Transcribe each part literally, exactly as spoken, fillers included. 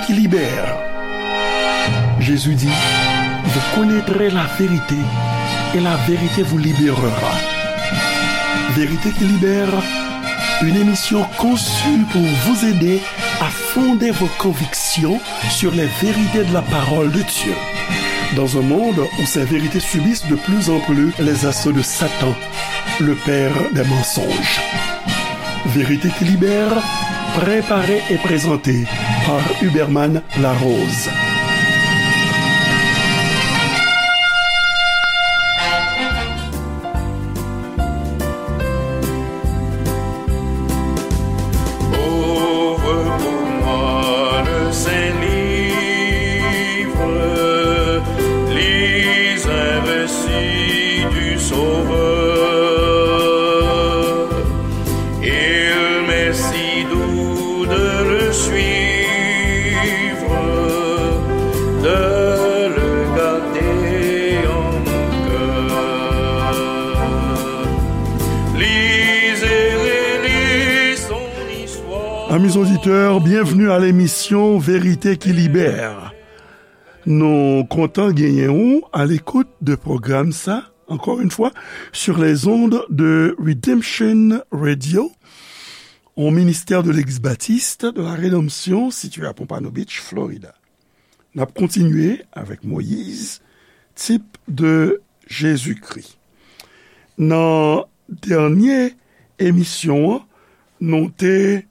qui libère. Jésus dit, vous connaîtrez la vérité et la vérité vous libérera. Vérité qui libère, une émission conçue pour vous aider à fonder vos convictions sur les vérités de la parole de Dieu. Dans un monde où ces vérités subissent de plus en plus les assauts de Satan, le père des mensonges. Vérité qui libère, préparée et présentée par Huberman Larose. Ouvre pour moi le Saint-Livre, lis un récit du Sauveur. Il m'est si doux de le suivre, de le garder en mon cœur. Lis et relis son histoire. Amis auditeurs, bienvenue à l'émission Vérité qui libère. Nou kontan genyen ou à l'écoute de pwogram sa, encore une fois, sur les ondes de Redemption Radio, au ministère de l'Église baptiste de la Rédemption, situé à Pompano Beach, Florida. N ap kontinye avèk Moyiz, tip de Jezikri. Nan dènye emisyon an, nou te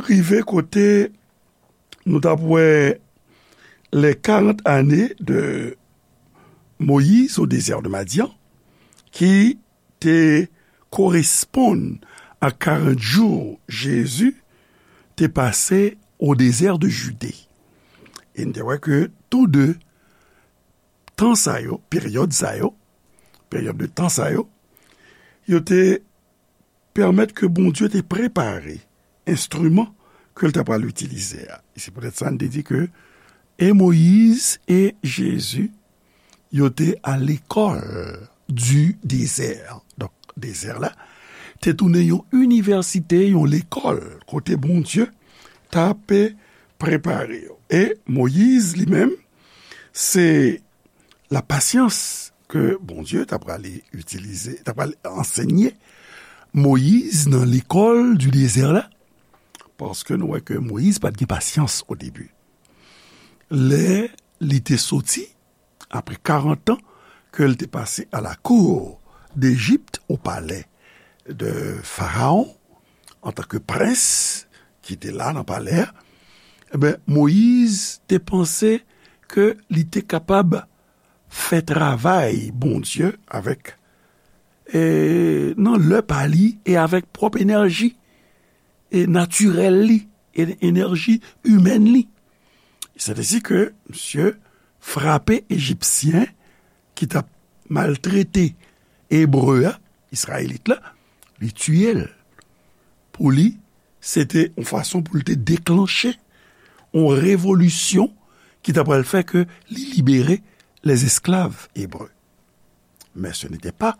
rive kote nou t ap wè les quarante années de Moïse au désert de Madian, ki te koresponn ak karant jou Jezi te pase au désert de Judée. E n te wè ke tou de tan sa yo, peryòd sa yo, peryòd de tan sa yo, yo te pèmèt ke Bondye te prepare enstriman ke l ta pral itilize a. E se poutèt sa n te di ke e Moyiz e Jezi, yo te à l'école du désert. Donk, dezè la te tounen yon inivèsite, yon lekòl, kote Bondye t ap prepare yo. E Moyiz, li menm, se la pasyans ke Bondye t ap prale itilize, t ap prale ansenye Moyiz nan lekòl du désert la, paske nou wè ke Moyiz pa t gen pasyans o debi. Lè li te soti, apre karant an ke l te pase à la cour d'Égypte, au palais de Pharaon, antanke prens ki te la nan palè a, ebyen, Moyiz te panse ke li te kapab fè travay Bondye avèk, e, nan lè pa li e avèk pwòp enèji, e, natirèl li, e, enèji imèn li. Se te di ke misye frape Ejipsyen ki t ap maltrete Ebre a, Izrayelit la, li tiye l. Pou li, se te yon fason pou l te deklanche yon revolisyon ki ta pral fè ke li libere les esclaves hébreux. Mais ce n'était pas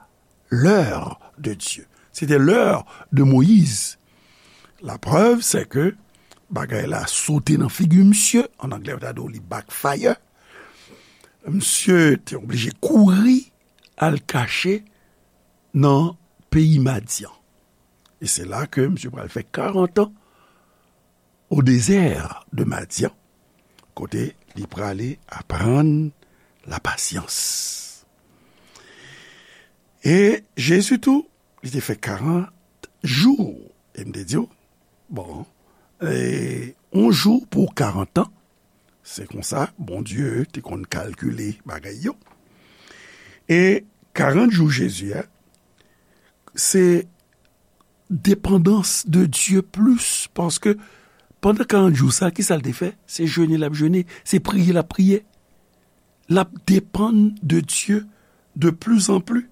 l'heure de Dieu. C'était l'heure de Moïse. Laprèv, se ke bagay la sote nan figi misye, an anglè, yo ta di w li backfire. Misye te oblije kouri al kache nan peyi Madyan. E se la ke misye pral fè karant an au désert de Madian, kote li prale aprann lapasyans. E Jezi tou, li te fè karant jou. E m te di w, bon, e, yon jou pou karant an, se konsa Bondye te konn kalkile bagay yo. E karant jou Jezi a, se depandans de Dye plis, paske pandan karant jou sa, kisa l te fè? Se jene l ap jene, se priye l ap priye. L ap depann de Dye de plus en plus.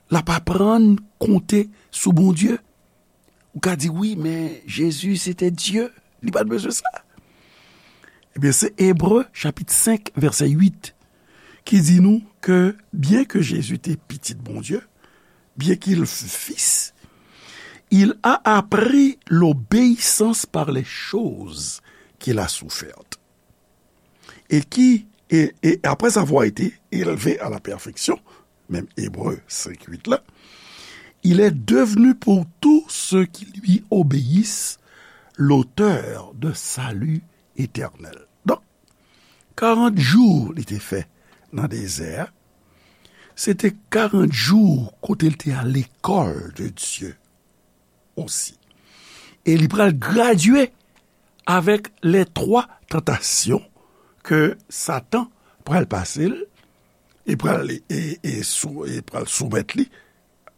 L ap aprann konte sou Bondye. Ou ka di, "Wi, men Jezi, se te Dye. Li pa t bezwen sa." Ebyen, se Ebre, chapit senk, vèsè uit, ki di nou ke, byen ke Jezi te pitit Bondye, bien qu'il fût fils, il a appris l'obéissance par les choses qu'il a souffertes. et qui, et, et après avoir été élevé à la perfection, menm Ebre senk uit la, il est devenu pour tous ceux qui lui obéissent l'auteur de salut éternel. Donk, karant jou li te fè nan dezè a, se te karant jou kote l te al lekòl de Dye osi. E li pral gradye avèk les trois tentations ke Satan pral pase l, e pral, e, e sou, e pral soumèt li,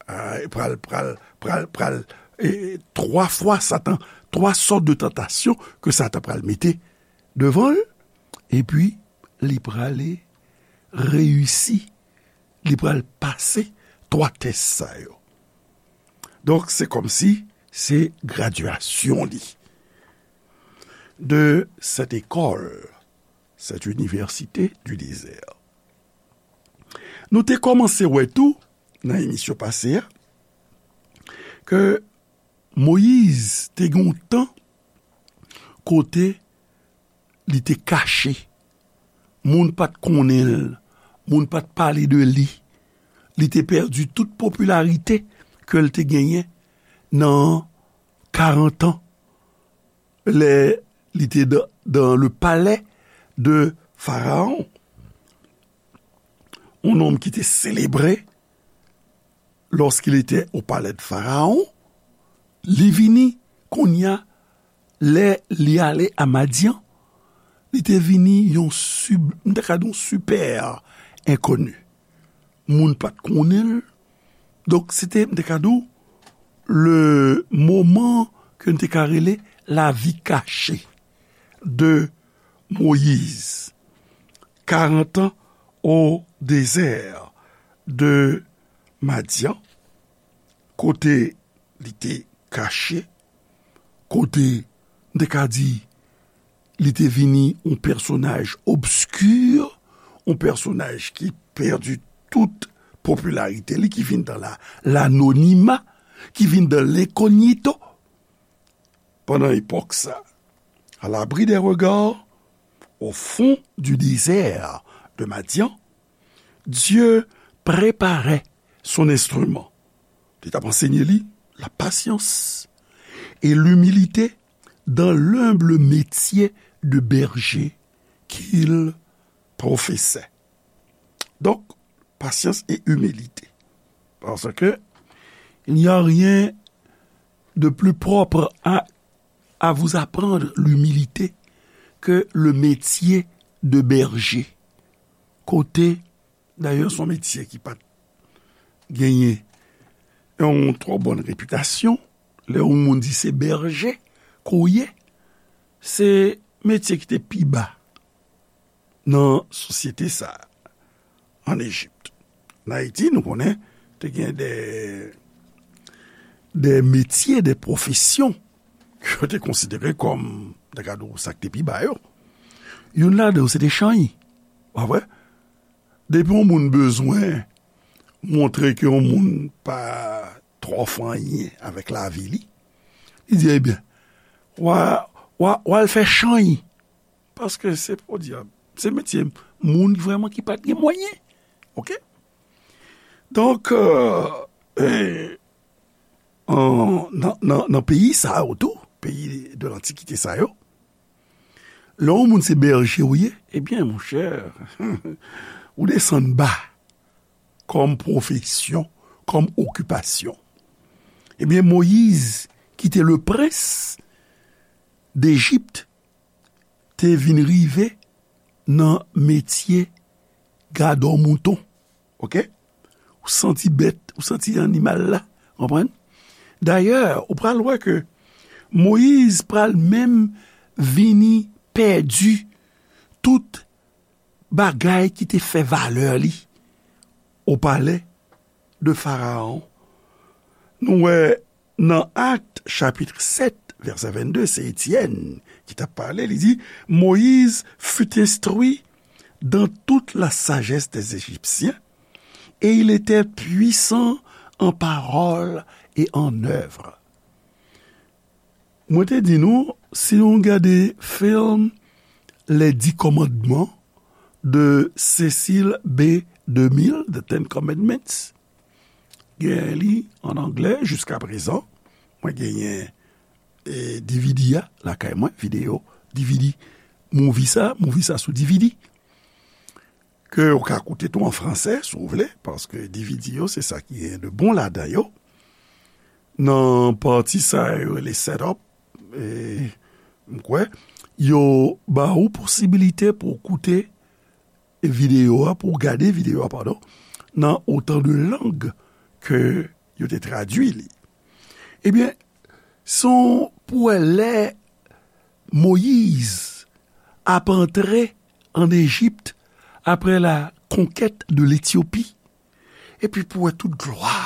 a, e pral, pral, pral, pral, e, twa fwa Satan, twa sòt de tantasyon ke Satan pral mete devan l, epi li prale reyisi, li pral pase twa tès sa yo. Donk, se kòmsi se gradyasyon li de cette école, cette université du désert. Nou te kòmanse wè tou, nan emisyon pase a, ke Moyiz te gen yon tan kote li te kache. Moun pa t konnen l, moun pa t pale de li. Li te pèdi tout popilarite ke l te genyen nan karant an, lè li te dan, dans le palais de Pharaon. Un homme qui était célébré lorsqu'il était au palais de Pharaon, li vini kounye a, lè li ale a Madyan, li te vini yon sib-, m ta ka di yon sipè enkoni. Moun pa t konnen l. Donk, se te, m ta ka di w, le moman ke n te ka rele la vie cachée de Moïse. Quarante ans au désert de Madian, kote li te kache, kote, m te ka di, li te vini yon pèsonaj obski, yon pèsonaj ki pèdi tout popilarite li, ki vin dan la, lanonima, ki vin dan lenkognito. Pandan epòk sa, à l'abri des regards, au fond du désert de Madian, Dieu préparait son instrument. Li t ap ansenye li la patience et l'humilité dans l'humble métier de berger qu'il professait. Donc, patience et humilité. Parce que il n'y a rien de plus propre à, à vous apprendre l'humilité que le métier de berger. Kote, dayè, se yon metye ki pa t genyen yon twò bòn repitasyon. Lè yon moun di se bèje ke w ye, se metye ki te pi ba nan sosyete sa a, ann Ejip. Ann Ayiti, nou konnen, te gen de, de metye, de pwofesyon ke yo te konsidere kòm, nan kad sa k te pi ba yo. Youn ladan yo, se te chanyi. Pa vre? Depi yon moun bezwen montre ke yon moun pa twò fè anyen avèk lavi li, li di, ebyen, w a, w a, w al fè chanyi. Paske se, podyab, se metye moun vrèman ki pa t gen mwayen. Oke? Donk, euh, e, an, nan, nan, nan peyi sa yo tou, peyi de lantikite sa yo, lè yon moun se bèje w ye, ebyen, monchè, ou desann ba kòm pwofesyon, kòm okipasyon. Ebyen, Moyiz, ki te le prens d'Égypte, te vin rive nan metye gadò mouton. Oke? Ou santi bèt, ou santi animal la, konprann? Dayè, ou pral wè ke Moyiz pral menm vini pèdi tout bagay ki te fè valè li o palè de Farawon. Nou wè nan Actes chapitre sept, verset vingt-deux, se Etyèn ki t ap pale, li di, Moïse fut instruit dans toute la sagesse des Égyptiens, et il était puissant en parole et en œuvre. Mwen te di nou, si nou gade fim Les Dix Commandements, de Cecil B. DeMille, The Ten Commandments. Genyen li an anglè jiska prezan. Mwen genyen e, D V D a lakay mwen, videyo, D V D, movie sa, movie sa sou D V D. Ke ou ka koute tou an fransè, si w vle, paske D V D yo, se sa ki gen de bon ladan yo. Nan pati sa yo rele setup, e, m kwè, yo ba ou posibilite pou w koute videyo a, pou w gade videyo a, padon, nan otan de lang ke yo te tradui li. Ebyen, se yon pou wè lè Moyiz ap antre ann Ejip apre la conquête de l'Éthiopie, epi pou wè tout glwa.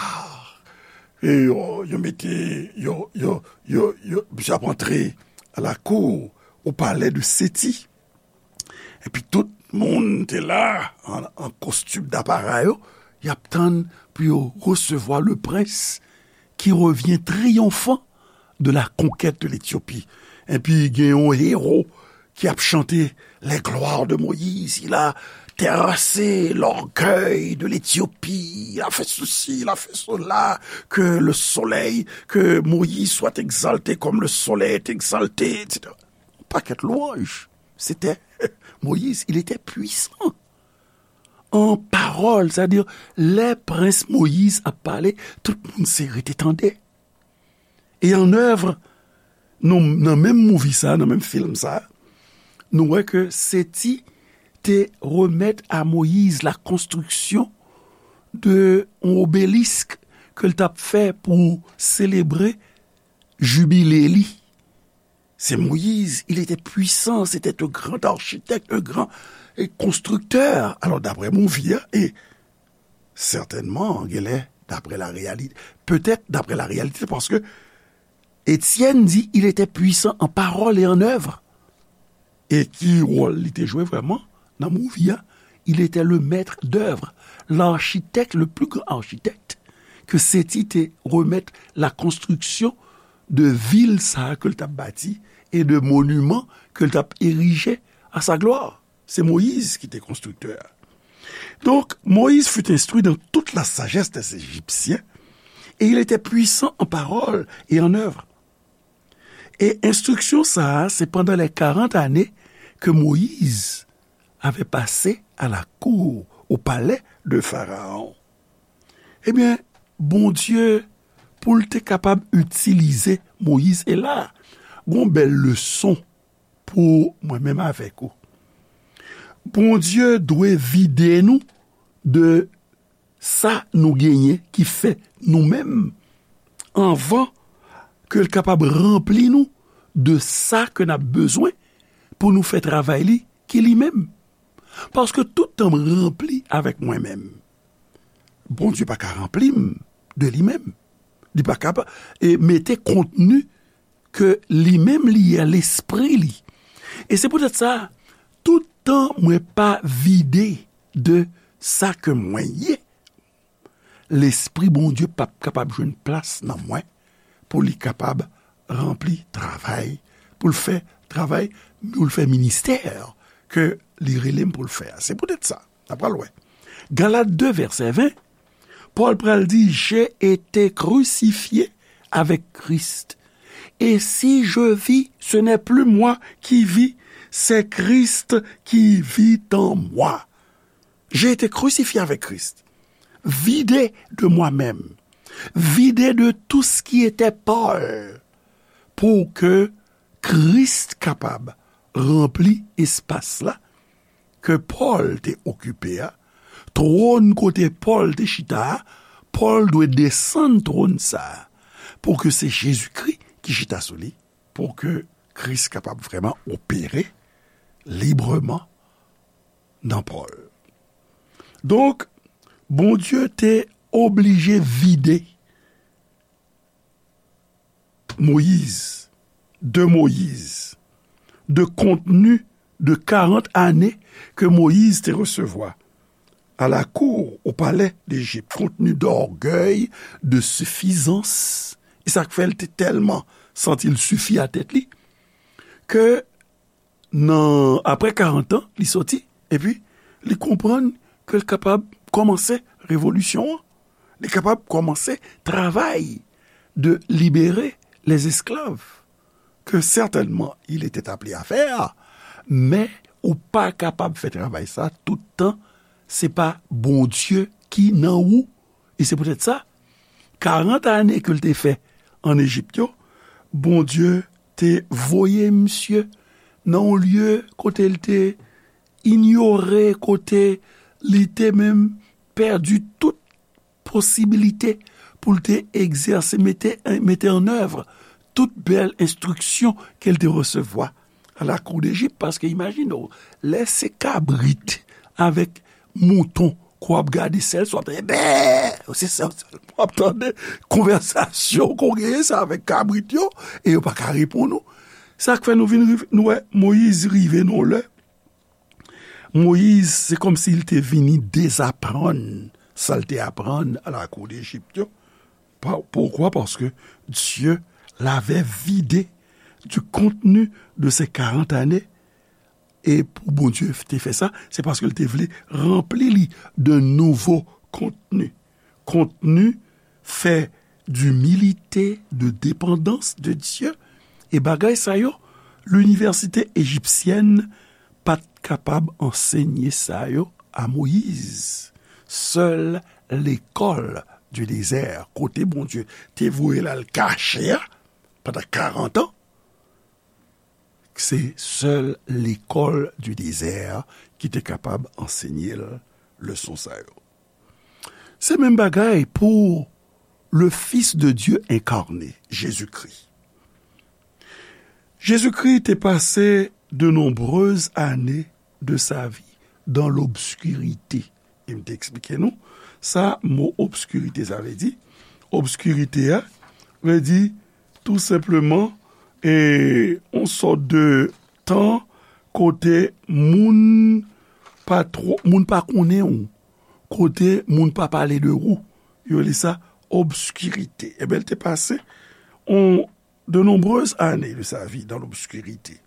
E yo, yo mete, yo, yo, yo, yo, misye ap antre à la cour, au palais de Séti. Epi tout moun te la, an, an kostim dapara yo, y ap tann pou yo resevwa le prince qui revient triomphant de la conquête de l'Éthiopie. Epi gen yon ewo ki ap chante les gloires de Moïse. Il a terrassé l'orgueil de l'Éthiopie. Il a fait ceci, il a fait cela. Que le soleil, que Moïse soit exalté comme le soleil est exalté, et cetera. Pakèt lwanj. C'était Moïse, il était puissant en parole, c'est-à-dire, lè prens Moyiz ap pale, tout moun se rete tande. E an èv, nou, nan menm movie sa, nan menm film sa, nou wè ke Seti te remèt a Moyiz la konstriksyon de yon obelisk ke l t ap fè pou selebre jibile li. Se Moyiz, il était puissant, c'était un grand architecte, un grand, eh, constructeur. Alors, d'après movie a, e sètènman, genlè, d'après la réalité, peut-être d'après la réalité, paske Etienne di, il était puissant en parole et en œuvre. E ki wòl li te jwe vrèman nan movie a? Il était le maître d'œuvre, l'architecte, le plus grand architecte ke Seti te remèt la konstriksyon de vil sa a ke l t ap bati e de moniman ke l t ap erije a sa glwa. Se Moyiz ki te konstriktè a. Donc, Moïse fut instruit dans toute la sagesse des Égyptiens, et il était puissant en parole et en œuvre. E enstriksyon sa a, se pandan lè karant ane ke Moyiz avè pase a la kou, o palè de Farawon. Ebyen, Bondye, pou l te kapab itilize Moyiz, e la, gon bèl leson pou mwen menm avèk ou. Bondye dwe vide nou de sa nou genyen ki fè nou menm, anvan ke l kapab ranpli nou de sa ke n ap bezwen pou nou fè travay li ki li menm. Paske tout tan m ranpli avèk mwen menm, Bondye pa ka ranpli m de li menm. Li pa ka pa, e mete kontni ke li menm li ye, lespri li. E se poutèt sa, tout tan mwen pa vide de sa ke mwen ye, Lespri Bondye p ap kapab jwenn plas nan mwen pou li kapab ranpli travay, pou l fè travay, pou l fè ministè ke li rele m pou l fè a. Se poutèt sa, n ap pral wè. Galat de, vèsè ven, Pòl pral di, j'ai été crucifié avec Christ. Et si je vis, ce n'est plus moi qui vis, c'est Christ qui vit en moi. J'ai été crucifié avec Christ. Vidé de moi-même. Vidé de tout ce qui était Paul. Pou ke Kris kapab ranpli espas la ke Pòl te okipe a, twòn kote Pòl te chita a, Pòl dwe desann twòn sa a, pou ke se Jezikri ki chita sou li, pou ke Kris kapab vrèman opere libreman nan Pòl. Donk, Bondye te oblije vide Moyiz, de Moyiz, de kontni de karant ane ke Moyiz te resevwa à la cour, au palais d'Égypte, kontni d'ògèy, de sifizans. E sa k fè l te tèlman santi l sifi a tèt li, ke nan, apre karant an, li soti, epi li konprann ke l kapab kòmanse revolisyon an. Li kapab kòmanse travay de libérer les esclaves, que certainement il était appelé à faire, men ou pa kapab fè travay sa tout tan se pa Bondye ki nan ou. E se poutèt sa, karant ane ke l te fè ann Ejip yo, Bondye te voye misye nan yon lye kote l te inyore, kote li te menm pèdi tout posibilite pou l te egzèse, mete, mete an èv tout bèl enstriksyon ke l te resevwa a la kou Dejip, paske imajine w, lè se kabrit avèk mouton ke w ap gade, sèl sa w ap tande, bè, se sèl w ap tande, konvèsasyon ke w genyen se avèk kabrit yo, e yo pa ka reponn ou. Sa k fè nou vin rive, nou wè Moyiz rive nan yon lè, Moyiz, se kòmsi l te vini dezaprann sa l te aprann a la kou Dejip yo. Pa-, poukwa? Paske Dye l avè vide di kontni de se karant ane. E pou Bondye te fè sa, se paske l te vle ranpli li de nouvo kontni. Kontni fè dimilite, de depandans de Dye. E bagay sa yo, linivèsite ejipsyèn pa t kapab ansenye sa yo a Moyiz. Sèl lekòl di dezè, kote Bondye te voye l al kache a pandan karant an, se sèl lekòl di dezè ki te kapab ansenye l leson sa yo. Se menm bagay pou le Fils de Dieu incarné, Jésus-Christ. Jezikri te pase de nombreuses années de sa vie dans l'obscurité. E m te eksplike nou sa mo obskirite sa vle di. Obskirite a vle di tou senpleman e yon sòt de tan kote moun pa twò, moun pa konnen ou, kote moun pa pale de ou. Yo rele sa obskirite. Ebyen, l te pase on de nombreuses années de sa vie dans l'obscurité.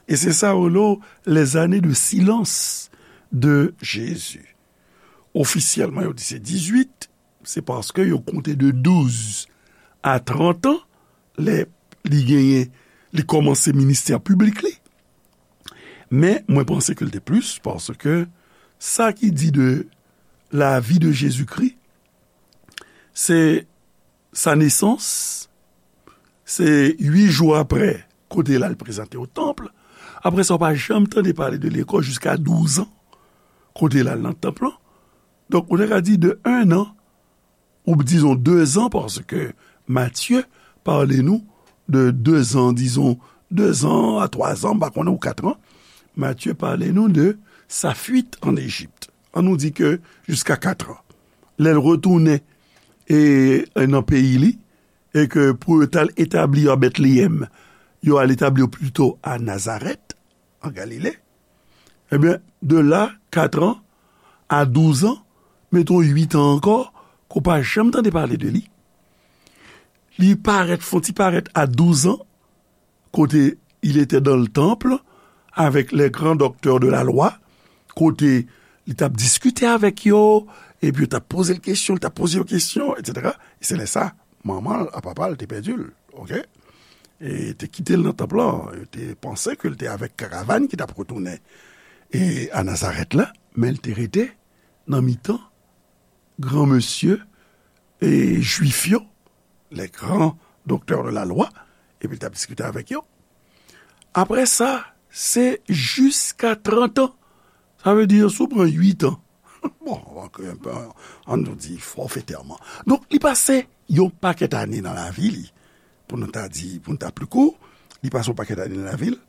E se sa yo rele les années de silence de Jésus. Ofisyèlman, yo di se dizuit, se paske yo konte de douz a trant an, lè li genyen, li kòmanse ministè piblik li. Men, mwen panse ke l te plis, paske sa ki di de la vie de Jésus-Christ, se sa nesans, se uit jou apre, kote l al prezante o tanp. Apre sa, w pa janm tande pale de li ankò jiska douz an, kote l al nan tanp lan. Donk, ou te ka di de en an, ou dizon de zan, paske Matye pale nou de de zan, dizon de zan a twa zan, m pa konnen, ou kat an. Matye pale nou de sa fuite en Égypte. An nou di ke jiska kat an. Lè l retounen e, e nan peyi li, e ke pou yo t al etabli yo a Betleyèm, yo al etabli yo pito a Nazarèt, an Galile. Ebyen, de la, kat an, a douz an, meton uit an ankò, ke w pa janm tande pale de li. Li parèt, fon ti parèt a douz an, kote il était dans le temple avec les grands docteurs de la loi, kote li t ap diskite avèk yo, epi yo t ap poze l kesyon, li t ap poze yo kesyon, etsetera. E se lè sa, manman l ak papa l te pèdi l, oke? E te kite l nan tanp lan, yo te panse ke l te avèk karavàn ki t ap retounen e a Nazarèt la, men l te rete nan mitan granmesye e jwif yo, les grands docteurs de la loi, epi l t ap diskite avèk yo. Apre sa, se jiska trant an. Sa vle di, si w pran uit an, bon, ann nou di fòfetèman. Donk, li pase yon pakèt ane nan lavi li, pou nou ta di, pou nou ta pli kou, li pase yon pakèt ane nan lavi l,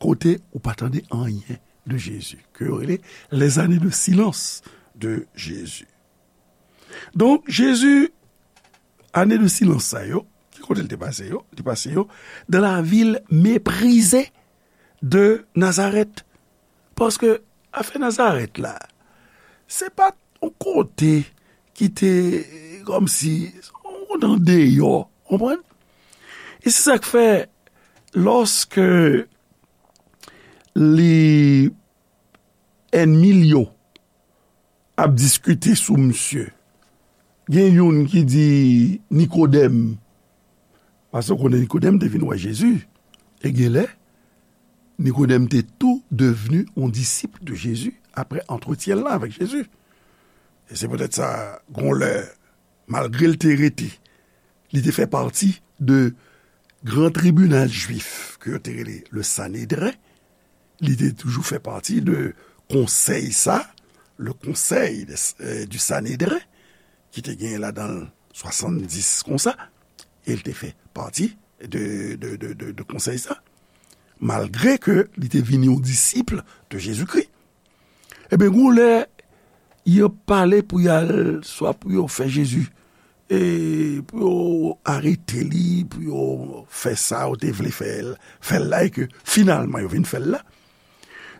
kote ou pa tande anyen de Jezi, ke yo rele les années de silence de Jésus. Donk, Jezi, ane de silans sa yo, ki kote l te pase yo? Li te pase yo dans la ville méprisée de Nazareth. Paske afè Nazarèt la, se pa t yon kote ki te kòmsi yon kote andeyò, konprann? E se sa k fè, lòske li ènmi l yo ap diskite sou misye. Gen youn ki di Nikodèm, paske w konnen Nikodèm te vin wè Jezi, e genlè, Nikodèm te tou devni yon disip de Jezi apre antretyen l lan avèk Jezi. E se poutèt sa, gon lè, malgre l te rete, li te fè pati de gran tribinal jwif ke yo te rele le Sanedren, li te toujou fè pati de konsèy sa, le konsèy de, euh, du Sanedren, ki te genyen ladan l swasanndis konsa, e l te fè pati de, de, de, de, de konsèy sa, malgre ke li te vin yon disip de Jezikri. Ebyen, gon lè, yo pale pou y al, swa pou yo fè Jezi, e pou yo arete li, pou yo fè sa yo te vle fè l, fè l la, e ke finalman yo vin fè l la.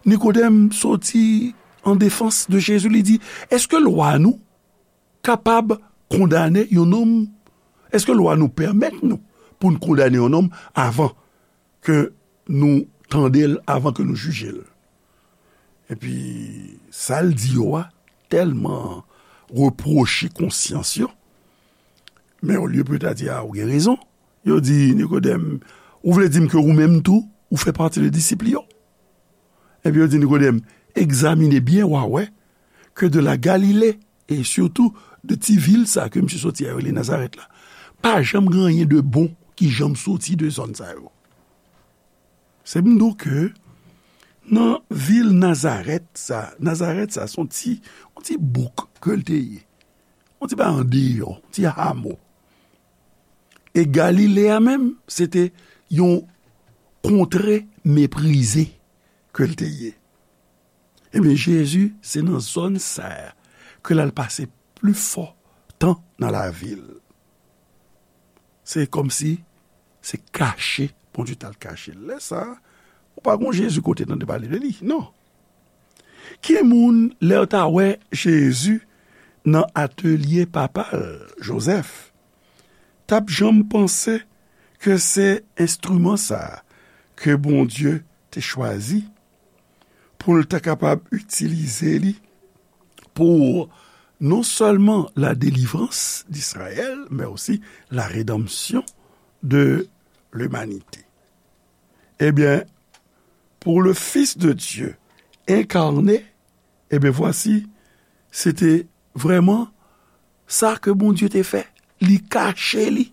Nikodèm soti an defans de Jezi, li di, èske lwa nou kapab kondane yon nonm? Èske lwa nou pèmèt nou pou n kondane yon nonm avan ke nou tande l, avan ke nou jije l? Epi, sa l di yo a tèlman repwoche konsyans yo, men olye pou yo ta di, a, ou gen rezon, yo di, Nikodèm, ou vle di m ke ou menm tou, ou fè pati de disip li yo? Epi yo di Nikodèm, egzamine byen, w a wè ke de la Galile, e sitou de ti vil sa ke misye soti a yo rele Nazarèt la, pa janm gen anyen de bon ki janm soti de zòn sa yo. Se m di w ke nan vil Nazarèt sa, Nazarèt sa, se yon ti, yon ti bouk ke l te ye. Yon ti bagay andeyò, yon ti hamo. E Galile a menm, se te yon kontre meprize ke l te ye. Ebyen, Jezi, se nan zòn sa a ke l al pase pli fò tan nan lavi l. Se kòmsi se kache Bondye t al kache l. Lè sa a, ou pa gon Jezi kote tande pale de li, non. Ki moun, lè yo ta wè Jezi nan atelye papa l, Jozèf, t ap janm panse ke se enstriman sa a ke Bondye te chwazi pou l ta kapab itilize li pour non seulement la délivrance d'Israël, mais aussi la rédemption de l'humanité. Ebyen, pour le Fils de Dieu incarné, ebyen, vwasi, se te vrèman sa ke Bondye te fè. Li kache li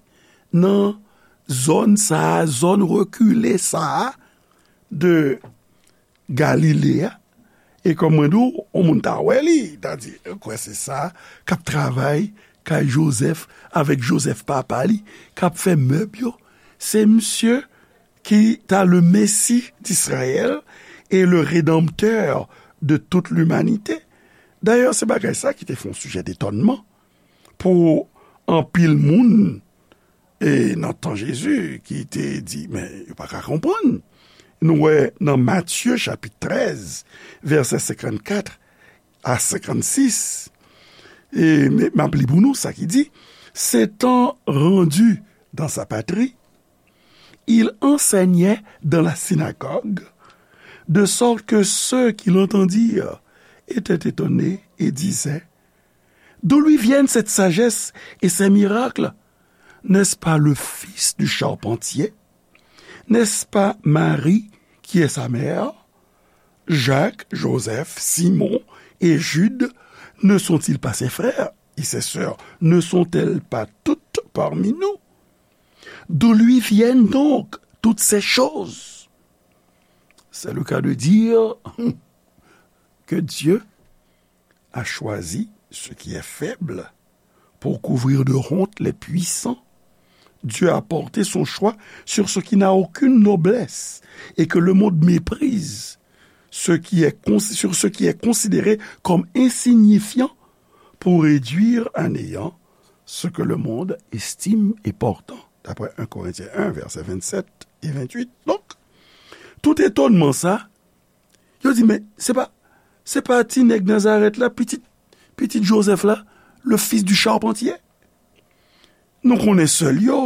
nan zòn sa a, zòn rekile sa a de Galile a. E kòm mwen di w, yon moun ta wè li, ta di, kwè se sa k ap travay kay Jozèf avèk Jozèf papa li, k ap fè mèb yo. Se misye ki ta le Messie d'Israël et le Rédempteur de toute l'humanité. Dayè, se bagay sa ki te fè yon sijè detònman pou anpil moun, e nan tan Jezi, ki te di, men yo pa ka konprann. Nou wè nan Matye chapit trèz, vèsè senkannkat a senkannsis, e m, m ap li pou nou sa ki di, s'étant rendu dans sa patrie, il enseignait dans la synagogue, de sorte que ceux qui l'entendirent étaient étonnés et disaient, d'où lui viennent cette sagesse et ces miracles? N'est-ce pas le fils du charpentier? N'est-ce pas Marie qui est sa mère? Jacques, Joseph, Simon et Jude ne sont-ils pas ses frères? Et ses sœurs ne sont-elles pas toutes parmi nous? D'où lui viennent donc toutes ces choses? C'est le cas de dire que Dieu a choisi ce qui est faible pour couvrir de honte les puissants. Dieu a porté son choix sur ce qui n'a aucune noblesse et que le monde méprise, ce qui est cons-, sur ce qui est considéré comme insignifiant pour réduire à néant ce que le monde estime important, d'après un Corinthiens un, versets vingt-sept et vingt-huit. Donk, tout etònman sa, yo di, men se pa, se pa ti nèg Nazarèt la, pitit, pitit Jozèf la, le fils du charpentier? Nou konnen sè l yo,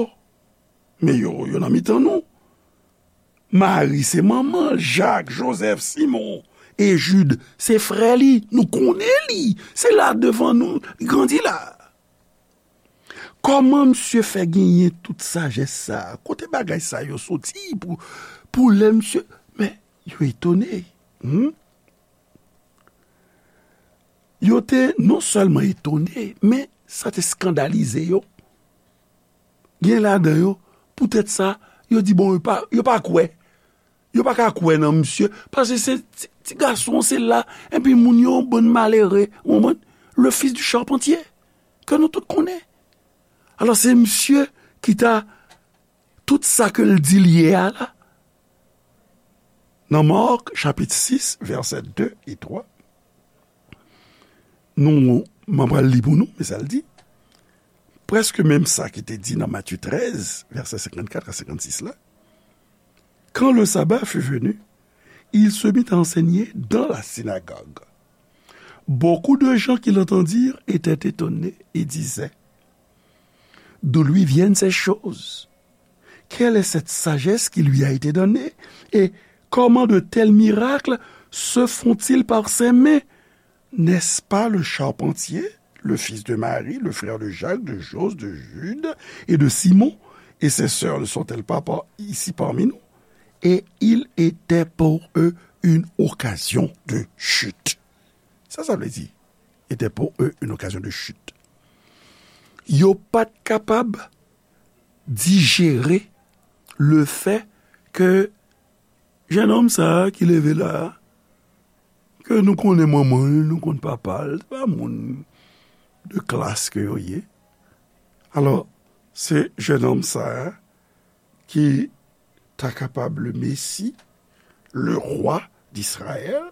men yo, yo nan mitan nou. Mari se manman l, Jak, Jozèf, Simon E Jid, se frè li, nou konnen li. Se la devan nou, li grandi la. Kòman misye fè genyen tout sajès sa a? Kote bagay sa yo soti pou, pou lè misye? Men, yo etone. Hmm? Yo te non sèlman etone, men sa te eskandalize yo. Gen ladan yo, poutèt sa, yo di, bon, yo pa, yo pa kwè. Yo pa ka kwè nan misye, paske se ti, ti gason, se la, epi moun yo, bann malere, ou konprann? Le fils du charpentier, ke nou tout konnen. Alò, se misye ki ta, tout sa ke l di l ye a la. Nan Mark, chapit sis, vèsè de e twa, nou, m ap pral li pou nou, men sa l di, prèske menm sa ki te di nan Matye trèz, vèsè senkannkat a senkannsis la. Quand le sabbat fut venu, il se mit à enseigner dans la synagogue. Beaucoup de gens qui l'entendirent étaient étonnés et disaient, d'où lui viennent ces choses? Quelle est cette sagesse qui lui a été donnée? Et comment de tels miracles se font-ils par ses mains? N'est-ce pas le charpentier, le fils de Marie, le frère de Jacques, de Jose, de Jude et de Simon? Et ses sœurs ne sont-elles pas par, ici parmi nous? Et il était pour eux une occasion de chute. Sa, sa vle di, était pour eux une occasion de chute. Yo pa t kapab dijere le fait que jennonm sa a ki leve la a, ke nou konnen manman l, nou konn papa l, se pa moun de klas ke yo ye. Alò, se jennonm sa a ki ta kapab le Messie, le roi d'Israël.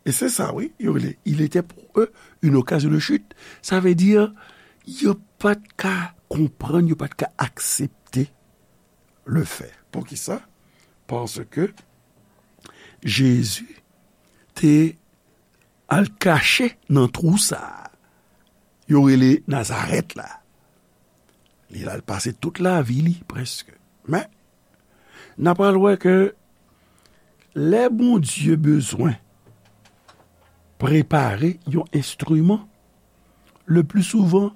E se sa, wi, yo rele, il était pour eux une occasion de chute. Sa vle di, yo pa t ka konprann, yo pa t ka aksepte le fait. Poukisa? Paske Jezi te al kache nan twou sa a. Yo rele Nazarèt la. Li al pase tout lavi li, prèske. Men, n a pral wè ke lè Bondye bezwen prepare yon enstriman, le pli souvan,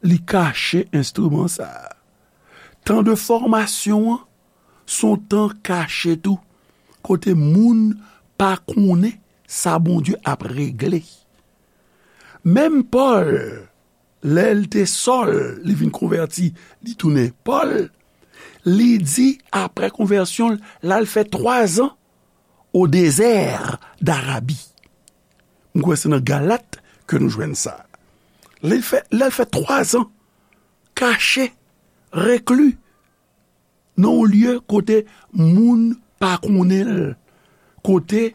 li kache enstriman sa a. Tan de fòmasyon an, se yon tan kache tou, kote moun pa konnen sa Bondye ap regle. Menm Pòl, lè l te Sòl, li vin konvèti, li tounen Pòl, li di, apre konvèsyon l, l al fè twazan au désert d'Arabie. M kwè se nan Galat ke nou jwenn sa. Lè l fè, lè l fè twazan kache, rekli, nan yon lye kote moun pa konnen l, kote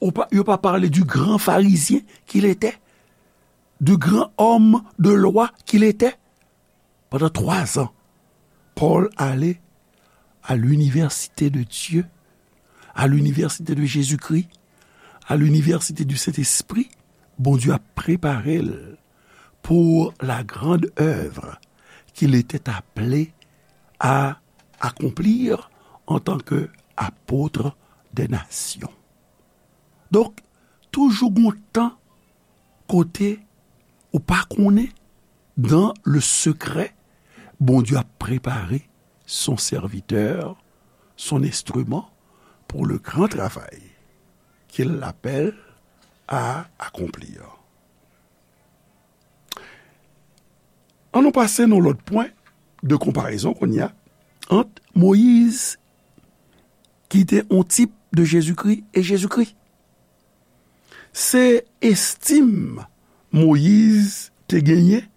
ou pa, yo pa pale du grand pharisien qu'il était, du grand homme de loi qu'il était. Pandan twazan, Pòl ale à l'université de Dieu, à l'université de Jésus-Christ, à l'université du Saint-Esprit. Bondye ap prepare l pour la grande œuvre qu'il était appelé à accomplir en tant que apôtre des nations. Donk, toujou gon tan kote ou pa konnen, dans le secret, Bondye ap prepare son serviteur, son instrument pour le grand travail qu'il l'appelle à accomplir. Ann nou pase nan lòt pwen de konparezon kounye a ant Moyiz, ki te yon tip de Jezikri, e Jezikri. Se estim Moyiz te genyen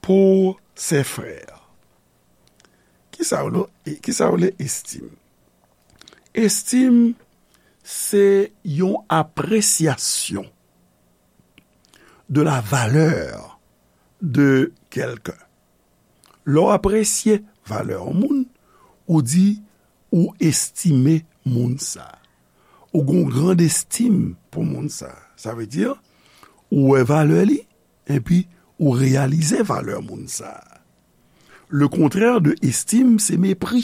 pou se frè. Kisa w le, kisa w le estim? Estim se yon apresyasyon de la valeur de quelqu'un. Lè w apresye valè yon moun, ou di ou estime moun sa. Ou gon grand estim pou moun sa. Sa vle di, ou wè valè li, epi ou reyalize valè moun sa. Le contraire de estim, se mepri.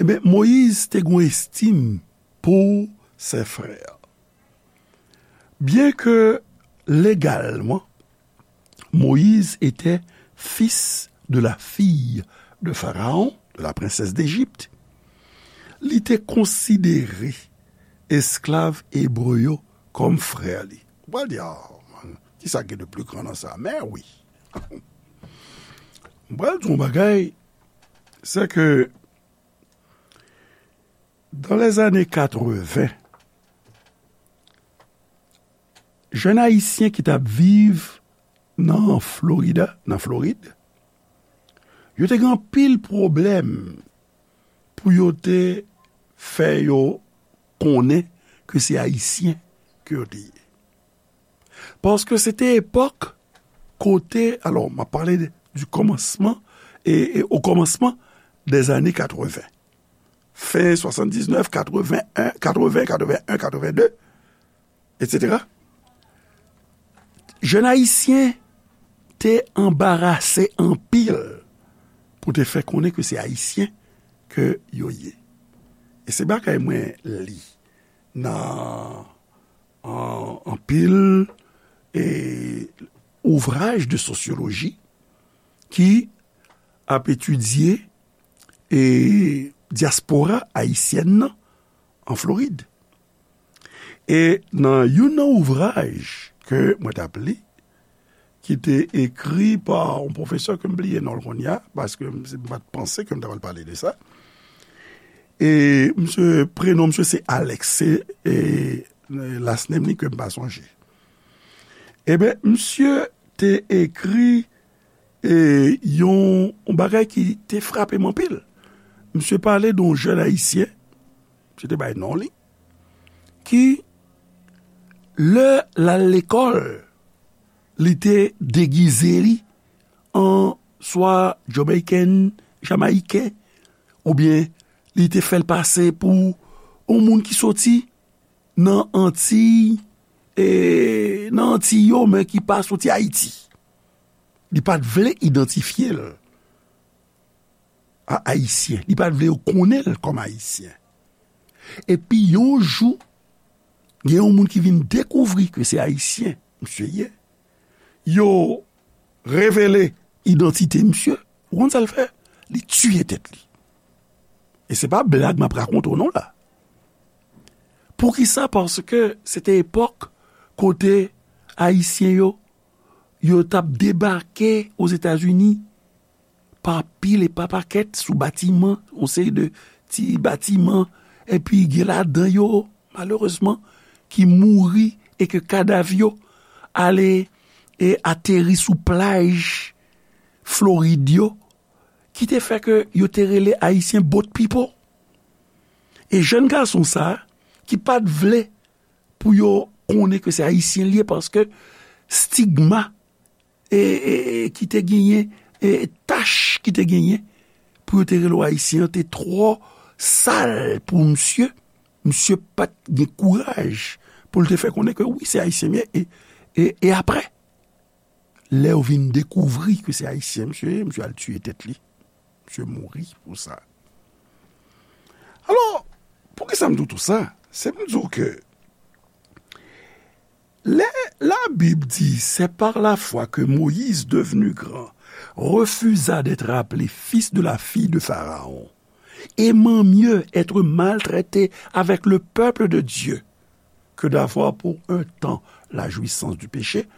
Ebyen, Moyiz te gon estim pou ses frères. Bien que légalement, Moïse était fils de la fille de Pharaon, de la princesse d'Égypte, li te konsidere esklav ebre yo kòm frè li. Ou pral di, "Ah, man, ki sa gen de pli gran nan sa?" Men wi. M pral di yon bagay, se ke dans les années quatre-vingts, jèn ayisyen ki t ap viv nan Florida, nan Florid, yo te gen anpil pwoblèm pou yo te fè yo konnen ke se ayisyen ke yo te ye. Paske se te epòk kote, alò, m ap pale de, du commencement, e, e, au commencement des années quatre-vingts. Fen swasanndiznèf, katreven, katreven, katreven en, katreven de, etsetera. Jèn ayisyen te anbarase anpil pou te fè konnen ke se ayisyen ke yo ye. E se bagay mwen li nan an, anpil, e, ouvraj de sosyoloji ki ap etidye, e, dyaspora ayisyèn nan an Florid. E nan youn nan ouvraj ke mwen t ap li, ki te ekri pa yon pwofesè ke m bliye non l kounye a, paske m, m pa t panse ke m ta pral pale de sa. E misye, prenon misye se Alex, se, e, last name li ke m pa sonje. Ebyen, misye te ekri, e, yon, yon bagay ki te frape m anpil. Misye pale de yon jèn ayisyen, misye te bay non li, ki, lè l al lekòl, li te degize li an swa Jamaican, Jamayiken, oubyen li te fè l pase pou yon moun ki soti nan Antiy, e, nan Antiy yo, men ki pa soti Ayiti. Li pa t vle idantifye l a Ayisyen. Li pa t vle yo konnen l kòm Ayisyen. Epi yon jou, gen yon moun ki vin dekouvri ke se Ayisyen misye ye. Yo revele idantite misye. Ou konn sa l fè? Li tiye tèt li. E se pa blag m ap rakonte w non la. Poukisa? Paske se te epòk kote Ayisyen yo, yo t ap debake Ozetazini pa pil e pa pakèt sou batiman, yon seri de ti batiman, epi gen ladan yo, malerezman, ki mouri e ke kadav yo ale e ateri sou plaj Florid yo, ki te fè ke yo te rele Ayisyen boat people. E jèn gason sa a, ki pa t vle pou yo konnen ke se Ayisyen l ye, paske stigma, e, e, e, ki te genyen, e, tach ki te genyen pou yo te rele w Ayisyen an te twò sal pou misye. Misye pa t gen kouraj pou l te fè konnen ke wi, se Ayisyen m ye. E, e, e apre, lè yo vin dekouvri ke se Ayisyen misye ye, misye al tiye tèt li. Misye mouri pou sa. Alò, poukisa m di w tou sa? Se pou m di w ke lè Labib di, c'est par la foi que Moïse, devenu grand, refusa d'être appelé fils de la fille de Pharaon, aimant mieux être maltraité avec le peuple de Dieu que d'avoir pour un temps la jouissance du péché,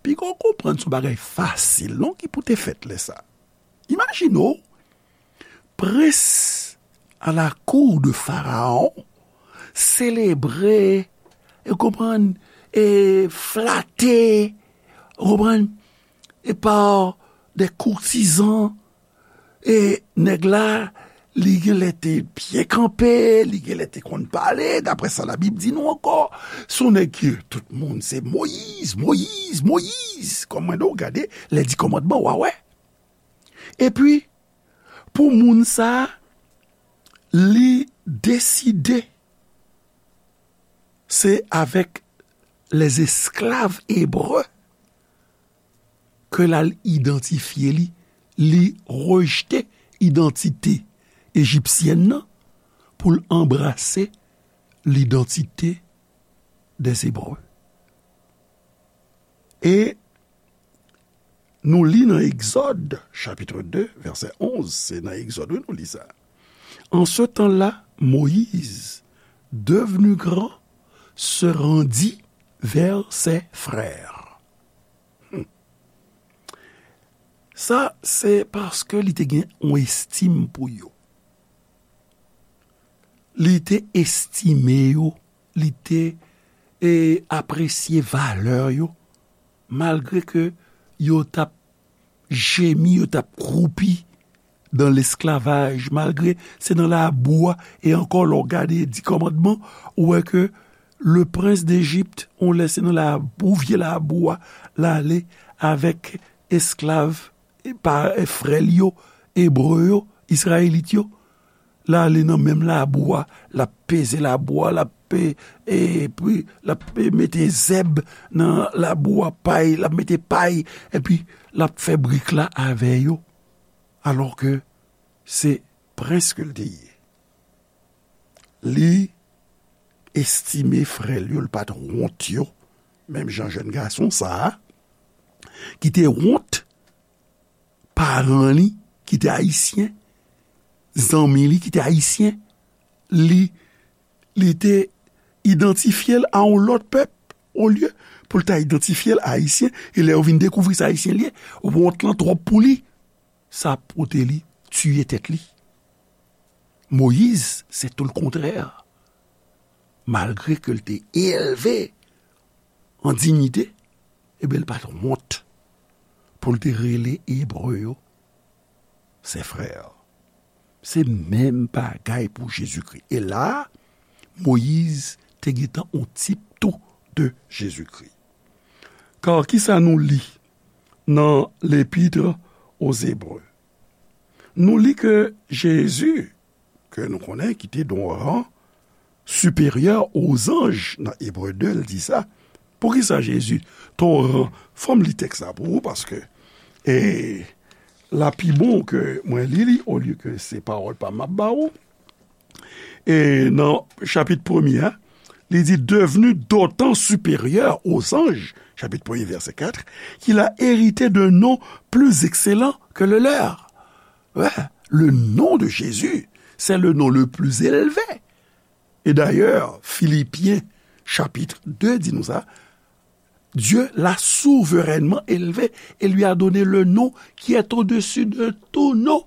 piga w konprann se yon bagay fasil, non, ki pou te fèt lè sa. Imajine w, prens à la cour de Pharaon, selebre, e konprann, e flate, ou konprann, e pa de koutizan, e nèg la, li genlè te byen kanpe, li genlè te konn pale, daprè sa Labib di nou ankò. Se yon nèg ki, tout moun, se Moyiz, Moyiz, Moyiz. Kòm mwen di w, gade, lè di kòmandman, w a wè. Epi, pou moun sa a, li deside se avèk lèzesklav ebre ke l al idantifye li, li rejte idantite ejipsyèn nan pou l anbrase l'identité des Hébreux. E nou li nan Egzòd, chapit de, vèsè onz, se nan Egzòd, wi, nou li sa. En ce temps-là, Moïse, devenu grand, se rendit vers ses frères. Hmm. Sa, se paske li te gen yon estim pou yo. Li te estime yo, li te, e, apresye valè yo, malgre ke yo t ap jemi, yo t ap kwoupi dans l'esclavage, malgre se nan labou a, e ankò, lè w gade Di Kòmandman, ou wè ke le prince d'Égypte, on lè se nan labou, vye labou a, l ale avèk esklav, e pa, e frè l yo, ebre yo, izrayelit yo, l ale nan menm labou a, l ap peze labou a, l ap, e, epi l ap, e, mete zèb nan labou a, pay, l ap mete pay, epi l ap fè brik la avè yo. Alò ke se prens ke l te ye. Li estime frè l yo, l pa t wont yo, menm jan jèn gason sa a, ki te wont paran li ki te ayisyen, zanmi li ki te ayisyen, li, li te idantifye l a yon lòt pèp, olye pou l ta idantifye l ayisyen, e lè yo vin dekouvri se ayisyen li ye, wont lan twòp pou li, sa pote li tiye tèt li. Moyiz, se tou lekontrè. Malgre ke l te elve an diyite, ebyen, l pa t wont pou l te rele Ebre yo ses frères. Se menm bagay pou Jezikri. E la, Moyiz te gentan yon tip tou de Jezikri. Kar kisa nou li nan L'Épître aux Hébreux? Nou li ke Jezi, ke nou konnen ki te nan yon ran siperyè ozanj nan Ebre de, l di sa. Poukisa Jezi te yon ran? Fò m li tèks la pou ou, paske, e, l a pi bon ke mwen li li, olye ke se pawòl pa m ap ba ou. E nan chapit premye a, li di, devenu d'autant supérieur aux anges, chapitre premier, verset quatre, qu'il a hérité d'un nom plus excellent que le leur. Ouais, le nom de Jésus, c'est le nom le plus élevé. Et d'ailleurs, Philippiens chapitre deux di nou sa, Dieu l'a souverainement élevé et lui a donné le nom qui est au-dessus de tout nom,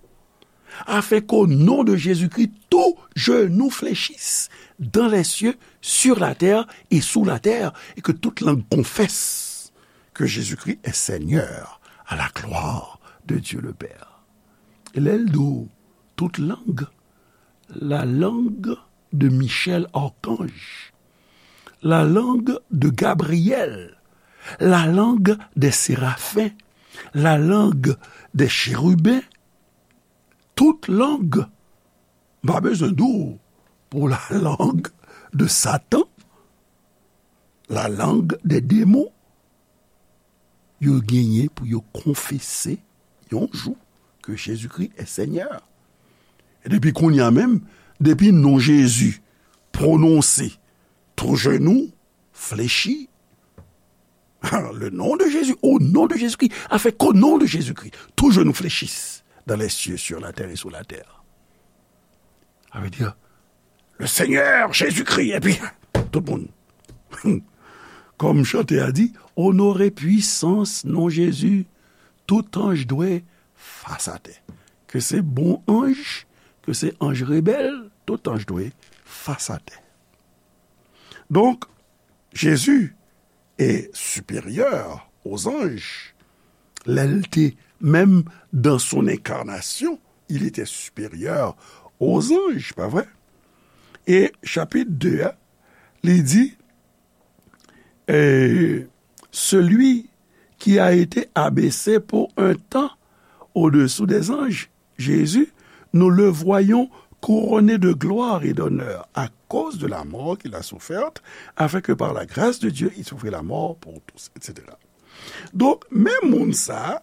afin qu'au nom de Jésus-Christ, tout genou fléchisse dans les cieux, sur la terre et sous la terre, et que toute langue confesse que Jésus-Christ est Seigneur, à la gloire de Dieu le Père. E lè l di w tout lang, la langue de Michel Archange, la langue de Gabriel, la langue des séraphins, la langue des chérubins, tout lang. M pa bezwen di w pou la langue de Satan, la langue des démons. Yo genyen pou yo konfese yon jou ke Jezikri è Senyè. E depi kounye a menm, depi non Jezi pwononse, tou jenou flechi. Le nom de Jésus, au nom de Jésus-Christ, afin qu'au nom de Jésus-Christ, tout genou fléchisse dans les cieux, sur la terre et sous la terre. Sa vle di, le Seigneur Jésus-Christ, epi tout moun. Kòm chante a di, onore pwisans non Jezi, tout anj dwe fas atè. Ke se bon anj, ke se anj rebèl, tout anj dwe fas atè. Donk, Jezi est supérieur aux anges. Lè l te, menm dans son incarnation, il était supérieur aux anges, pa vre? E chapit de a, li di, e, celui qui a été abaissé pour un temps au-dessous des anges, Jésus, nous le voyons couronné de gloire et d'honneur à cause de la mort qu'il a soufferte, afin que par la grâce de Dieu, il souffrit la mort pour tous, et cetera. Donk, menm moun sa a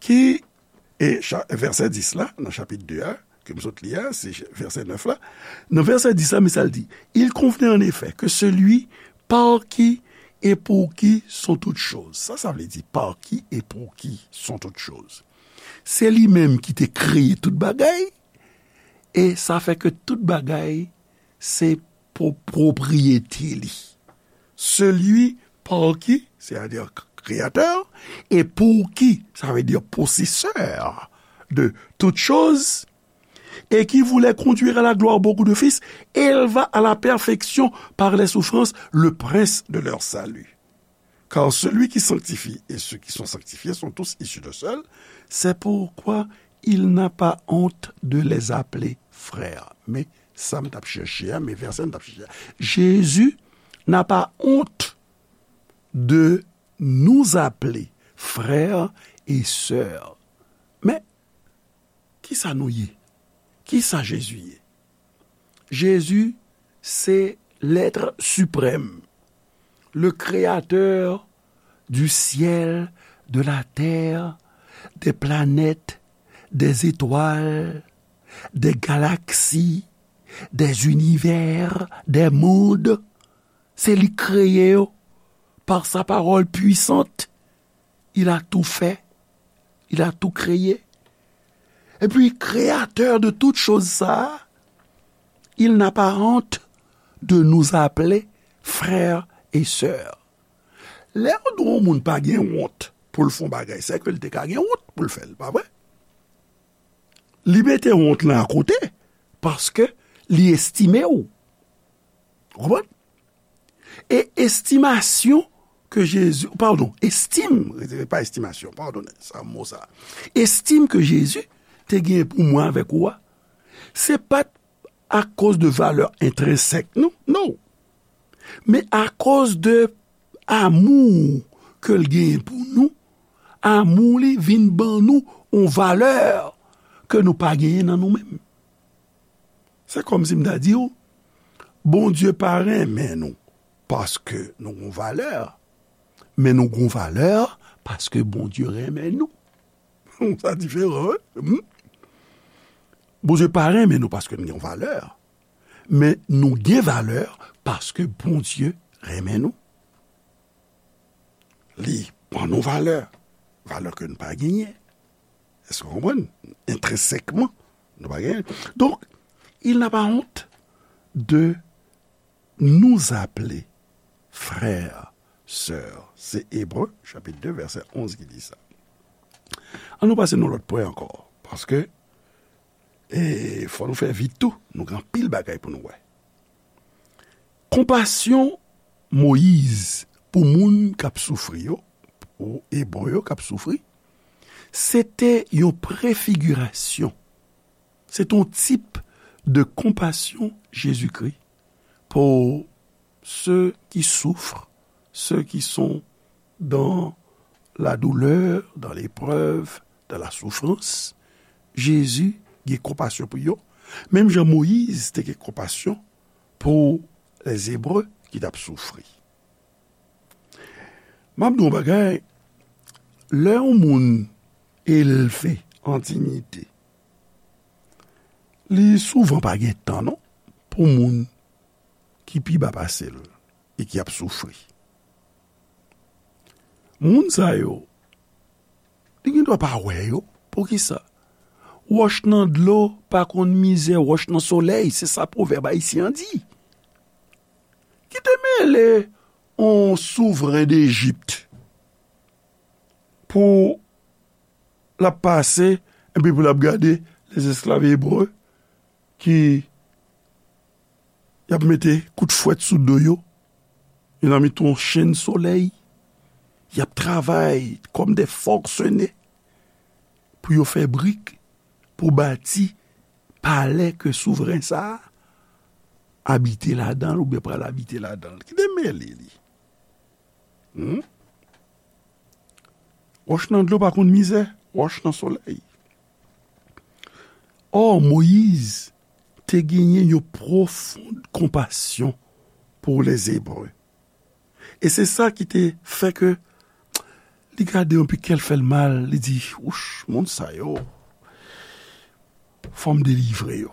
ki, e cha-, vèsè dis la, nan chapit de a, ke m sot li a, se vèsè nèf la. Nan vèsè dis la, men sa l di, Il convenait en effet que celui par qui et pour qui sont toutes choses. Sa, sa vle di, par qui et pour qui sont toutes choses. Se li menm ki te kreye tout bagay, e sa fè ke tout bagay se po-, pwopriyete li. Celui par qui, c'est-à-dire créateur, et pour qui, ça veut dire possesseur de toutes choses, et qui voulait conduire à la gloire beaucoup de fils, éleva à la perfection par les souffrances le prince de leur salut. Car celui qui sanctifie et ceux qui sont sanctifiés sont tous issus de seul, c'est pourquoi il n'a pas honte de les appeler frères. Men sa m t ap chèche a, men vèsè m t ap chèche a. Jésus n'a pas honte de nous appeler frères et sœurs. Men, kisa nou ye? Kisa Jezi ye? Jezi se lèt siprèm, le créateur du ciel, de la terre, des planètes, des étoiles, des galaxies, des univers, des mondes. Se li k kreye yo par sa parole puissante. Il a tout fait. Il a tout créé. Et puis, créateur de toutes choses, ça, il n'a pas honte de nous appeler frères et sœurs. Lè yon moun pa gen wont pou l fè yon bagay, se ke l te ka gen wont pou l fè l, pa vre? Li mete wont lan akote, paske li estime w. Ou konprann? E estimasyon ke Jezi, padon, estim, pa estimasyon, padone, sa mo sa. Estim ke Jezi te gen pou mwen avèk ou a, se pa t akoz de valè entrensèk nou, non. Men akoz de amou ke l genyen pou nou, amou li vin ban nou yon valè ke nou pa genyen nan nou menm. Se kòmsi m ta di w, Bondye pa renmen nou paske nou gon valè, men nou gon valè paske Bondye renmen nou. Sa diferan, wi. Hmm? Bondye pa renmen nou paske nou gen valè, men nou gen valè paske Bondye renmen nou. Li ban nou valè, valè ke nou pa genyen. Èske w konprann? Entrensèkman, nou pa genyen. Donk, il n'a pas honte de nous appeler frères, sœurs. Se Ebre, chapit de, vèsè onz ki di sa. An nou pase nan lòt pwen ankò, paske, e, fò nou fè vit tou, nou gen anpil bagay pou nou wè. Konpasyon Moyiz pou moun k ap soufri yo, pou Ebre yo k ap soufri, se te yon prefigirasyon, se te yon tip de konpasyon Jezikri pour ceux qui souffrent, ceux qui sont dans la douleur, dans l'épreuve, dans la souffrance. Jezi gen konpasyon pou yo. Menm jan Moyiz te gen konpasyon pou lèzebre ki t ap soufri. M ap di w yon bagay, lè yon moun elve an diyite, li souvan pa gen tan non pou moun ki pi ba pase l e ki ap soufri. Moun sa yo, li gen dwa pa wè yo. Poukisa? Wòch nan dlo pa konn mizè wòch nan solèy, se sa pwovèb ayisyen an di. Ki te mele yon souvren Dejip pou l ap pase, epi pou l ap gade lèzesklav ebre ki y ap mete kout fwèt sou do yo, yo nan mitan yon chenn solèy, y ap travay kòm de fòksene pou yo fè brik, pou bati palè ke souvren sa a abite ladan l oubyen pral abite ladan l. Ki te mele li? Hmm? Wòch nan dlo pa konn mizè, wòch nan solèy. Ò, Moyiz te genyen yon pwofon konpasyon pou lèzebre. E se sa ki te fè ke li gade yon pi kè l fè l mal, li di, wouch, moun sa yo, fò m delivre yo.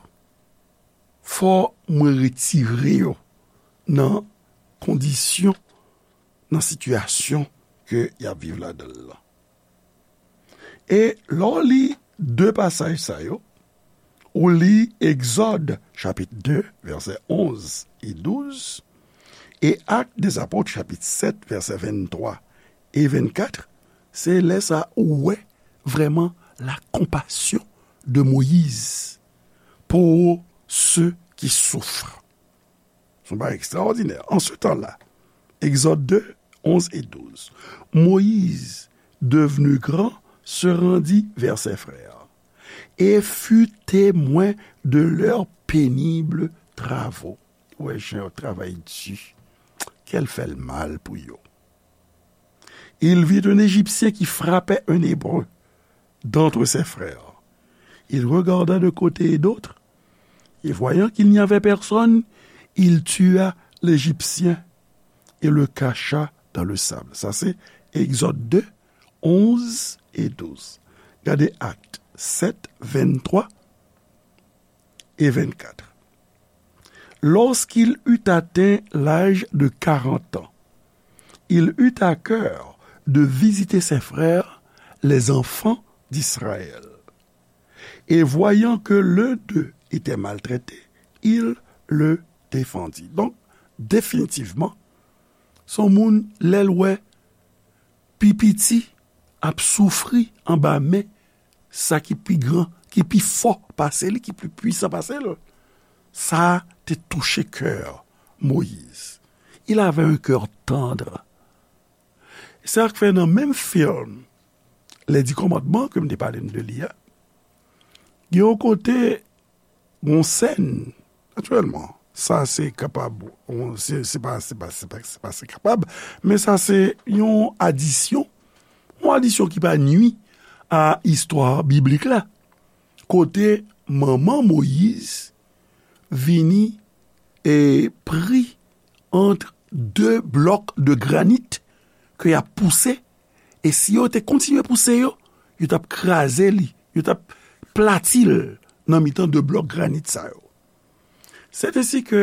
Fò mwen retire yo nan kondisyon, nan sitiyasyon ke y ap viv ladan l lan. E lè w li de pasaj sa yo, ou li Egzòd chapit de, vèsè onz e douz, e Actes des Apôtres chapit sèt, vèsè venntwa e vennkat, se lè sa ou wè vrèman la compassion de Moïse pour ceux qui souffrent. Se yon bagay ekstraòdinè. En ce temps-là, Exode deux, onze et douze, Moïse, devenu grand, se rendit vers ses frères et fut témoin de leurs pénibles travaux. Ou wè jan yo travay di. Kè l fè l mal pou yo. Il vit un Égyptien qui frappait un Hébreu d'entre ses frères. Il regarda de côté et d'autre, et voyant qu'il n'y avait personne, il tua l'Égyptien et le cacha dans le sable. Sa se Egzòd de, onz e douz. Gade Actes sept, vingt-trois et vingt-quatre. Lorsqu'il eut atteint l'âge de quarante ans, il eut à cœur de visiter ses frères, les enfants d'Israël. Et voyant que l'un d'eux était maltraité, il le défendit. Donk, definitivman, se yon moun, lè l wè pi piti ap soufri anba men sa ki pi gran, ki pi fò pase li, ki pi pwisan pase l, sa te touche kè Moyiz. Il avait un cœur tendre. Se sa k fè nan menm fim Les Dix Commandements ke m te pale n de li a, gen yon kote, yon sèn, natirèlman, sa se kapab, yon, se, se pa, se pa, se pa, se pa se kapab, men sa se yon adisyon, yon adisyon ki pa nui a istwa biblik la, kote manman Moyiz vini e pri ant de blòk de granit ke y ap pouse, e si yo te kontinye pouse yo, yo t ap kraze li, yo t ap plati l nan mitan de blòk granit sa yo. Sètensi ke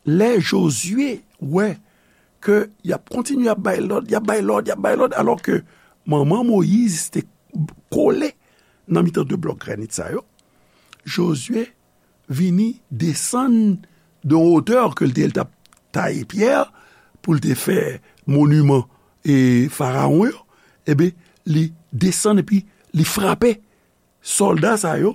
lè Jozye wè ke y ap kontinye ap bay lòd, y ap bay lòd, y ap bay lòd, alò ke manman Moyiz te kole nan mitan de blòk granit sa yo, Jozye vini desann de wotè ke l te, l t ap taye pyè pou l te fè moniman e farawon yo, ebyen, li desann epi li frape sòlda sa yo,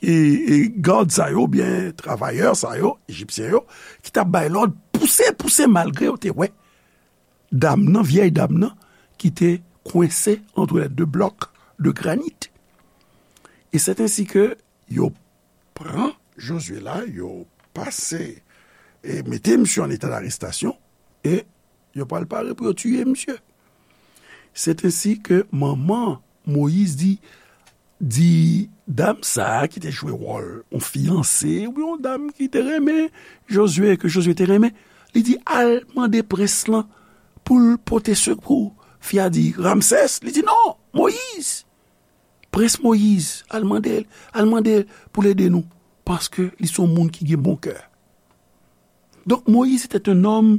e, e gad sa yo, oubyen travayè sa yo, ejipsyen yo, ki t ap bay lòd, pouse, pouse, malgre yo te wè dam nan, vyèy dam nan, ki te kwense ant lè de blòk de granit. E sètensi ke yo pran Jozye la, yo pase e mete misye an eta darestasyon, e yo pral pare pou yo tiye misye. Sètensi ke manman Moyiz di, di dam sa a ki te jwe wòl yon fiyanse, oubyen yon dam ki te renmen Jozye, ke Jozye te renmen, li di, al mande prens lan pou l pote sekou. Fi a di, Ramsès, li di, non, Moyiz. Prens Moyiz, al mande l, al mande l pou l ede nou, paske li se yon moun ki gen bon kè. Donk, Moyiz se te yon nonm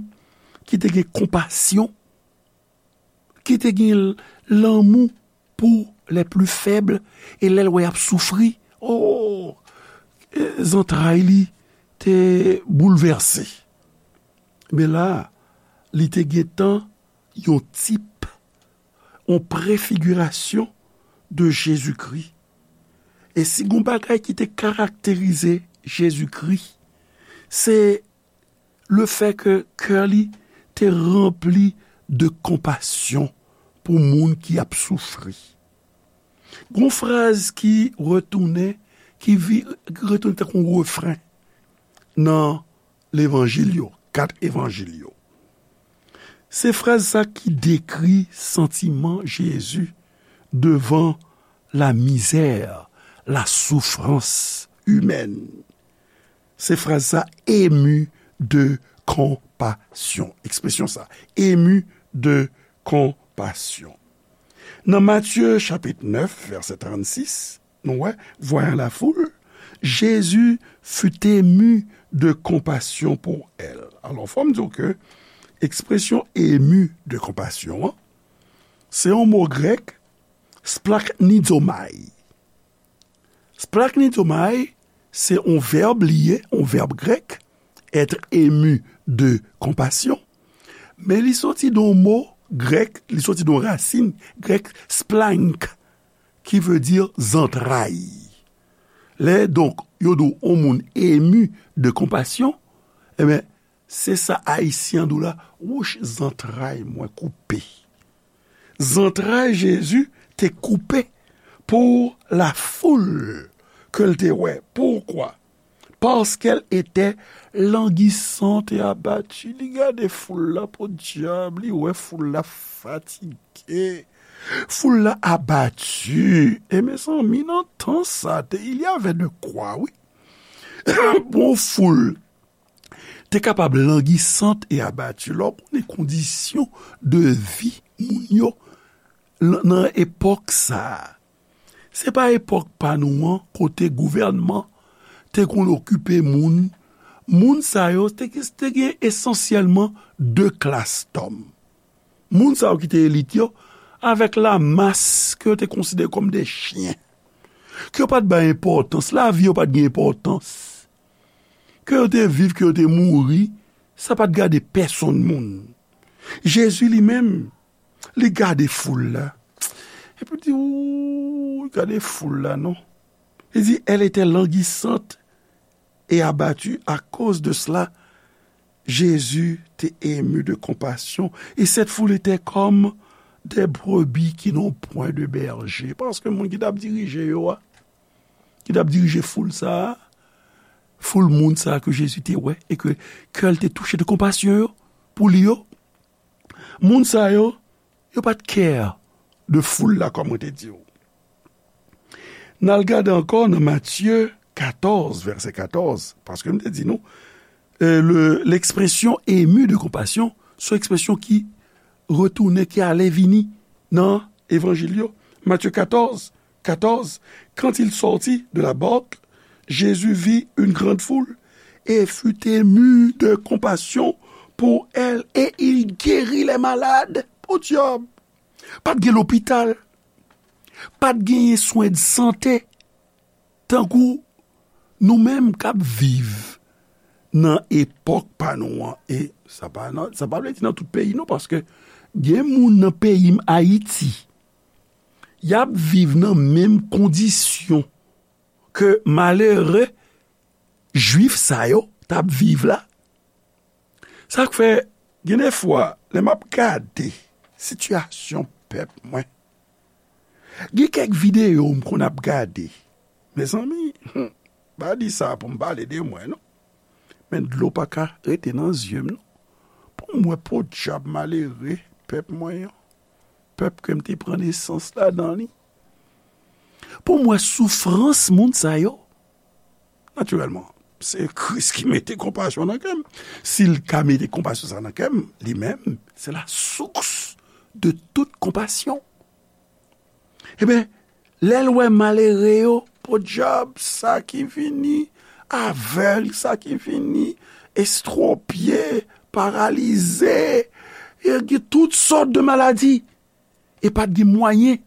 ki te gen konpasyon, ki te gen lanmou pou les plus faibles, e lè l wè y ap soufri, o, zantray li te boulvèse. Men la, li te gentan yon tip, yon prefigirasyon de Jezikri. E si gon bagay ki te karakterize Jezikri, se le fè ke kè li te ranpli de konpasyon pou moun ki ap soufri. Gon fraz ki retounen, ki vi-, ki retounen tankou refren nan levanjil yo, kat evanjil yo. Se fraz sa ki dekri santiman Jezi devan la misère, la souffrance humaine. Se fraz sa, ému de compassion. Ekspresyon sa, ému de compassion. Nan Matye chapit nèf, vèsè trannsis, nou wè, voyant la foule, Jésus fut ému de compassion pour elle. Alò, fò m di w ke ekspresyon ému de compassion an, se yon mo grèk, splaknizomai. Splaknizomai, se yon vèb li ye, yon vèb grèk, être ému de compassion. Men li soti de yon mo grèk, li soti de yon rasin grèk, splank, ki vle di zantray. Lè, donk, yo di w yon moun ému de compassion, ebyen, se sa Ayisyen an di w la, wouch, zantray mwen koupe. Zantray Jezi te koupe pour la foule ke l te wè. Pourquoi? Parce qu'elle était languissante et abattue. Li gade foul la, podyab, li wè foul la fatige. Foul la abati. E mezanmi, nan tan sa, te, il y avait de quoi, wi. Bon, foul te kapab languissante et abattue. Lè w konnen kondisyon de vi moun yo lan-, nan epòk sa a. Se pa epòk pa nou an, kote gouvènman te konn okipe moun. Moun sa yo te, te gen esansyèlman de klas dòm. Moun sa yo ki te elit yo, avèk la mas ke yo te konsidere kòm de chyen, ke yo pa t bay enpòtans, lavi yo pa t gen enpòtans. Ke yo te viv, ke yo te mouri, sa pa t gade pèsonn moun. Jezi li menm, li gade foul la. Epi li di, ou, gade foul la, non. Li di, elle était languissante et abattue. À cause de cela, Jésus était ému de compassion. Et cette foule était comme des brebis qui n'ont point de berger. Paske moun ki t ap dirije yo a, ki t ap dirije foul sa a, foul moun sa a ke Jezi te wè e ke kè l te touche de konpasyon yo, pou li yo, moun sa yo, yo pa t care de foul la, kòm mwen te di w. N al gade ankò nan Matye katòz, vèsè katòz, paske m te di nou, euh, le, l'expression ému de compassion, se yon ekspresyon ki retounen, ki ale vini nan Evanjil yo. Matye katòz, katòz, quand il sortit de la barque, Jésus vit une grande foule et fut ému de compassion pour elle et il guérit les malades. Podyab! Pa t gen lopital, pa t genyen swen de sante, tankou nou menm k ap viv nan epòk pa nou an. E sa pa nan, sa pa vle di nan tout peyi non, paske gen moun nan peyi m, Ayiti, y ap viv nan menm kondisyon ke malere jwif sa yo t ap viv la. Sa k fè, gen de fwa, lè m ap gade sitiyasyon pèp mwen, gen kèk videyo m konn ap gade. Mezanmi, hmm, pa di sa pou m pale de mwen, non. Men dlo pa ka rete nan zye m, non. Pou m wè podyab malere pèp mwen an, pèp ke m te pran nesans ladan li. Pou m wè soufrans moun sa yo. Natirèlman, se Kris ki mete konpasyon nan kè m. Si l ka mete konpasyon sa nan kè m, li menm, se la source de toute compassion. Ebyen, lè l wè malere yo, podyab, sa ki vini avèg, sa ki vini estwopye, paralize, e gen tout sòt de maladi. E pa t gen mwayen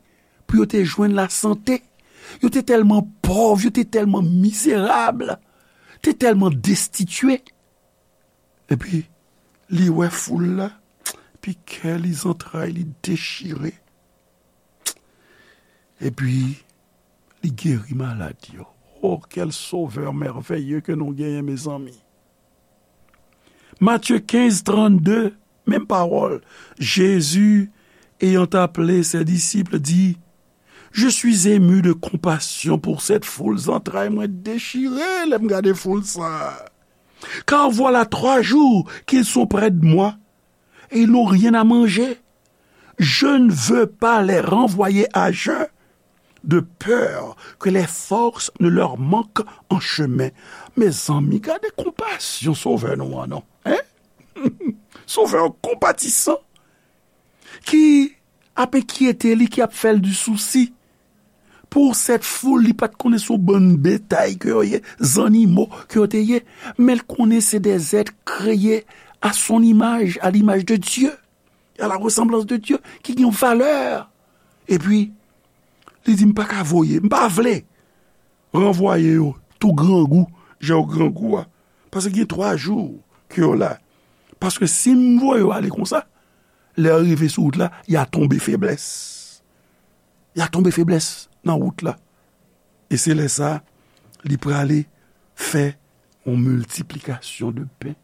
pou yo te jwenn lasante. Yo te tèlman pòv, yo te tèlman mizerab, te tèlman destitye. Epi, li wè foul la, epi kè li, zantray li dechire. Epi, li geri malad yo. Oh, quel sauveur merveilleux ke nou genyen, mezanmi! Matthieu quinze, trente-deux, menm pawòl. Jésus, ayant appelé ses disciples, dit, Je suis ému de compassion pour cette foule, zantray mwen dechire lè m gade foul sa a. Car voilà trois jours qu'ils sont près de moi et ils n'ont rien à manger. Je ne veux pas les renvoyer à jeun, de peur que les forces ne leur manquent en chemin. Mezanmi, gade konpasyon Sovè nou an, non? Hein? Sovè konpatisan ki ap enkyete li, ki ap fè l di sousi. Pour cette foule, li pa t konnen se yon bann betay ke yo ye, zannimo ke yo te ye, men l konnen se des êtres créés à son image, à l'image de Dieu, à la ressemblance de Dieu, ki gen yon valè. Epi, li di, "M pa ka voye, m pa vle ranvwaye yo tou grangou, jan yo grangou a. Paske gen twa jou ke yo la. Paske si m voye yo ale konsa, lè yo rive sou wout la, y a tonbe feblès. Y a tonbe feblès nan wout la." E se lè sa, li prale fè yon miltiplikasyon de pen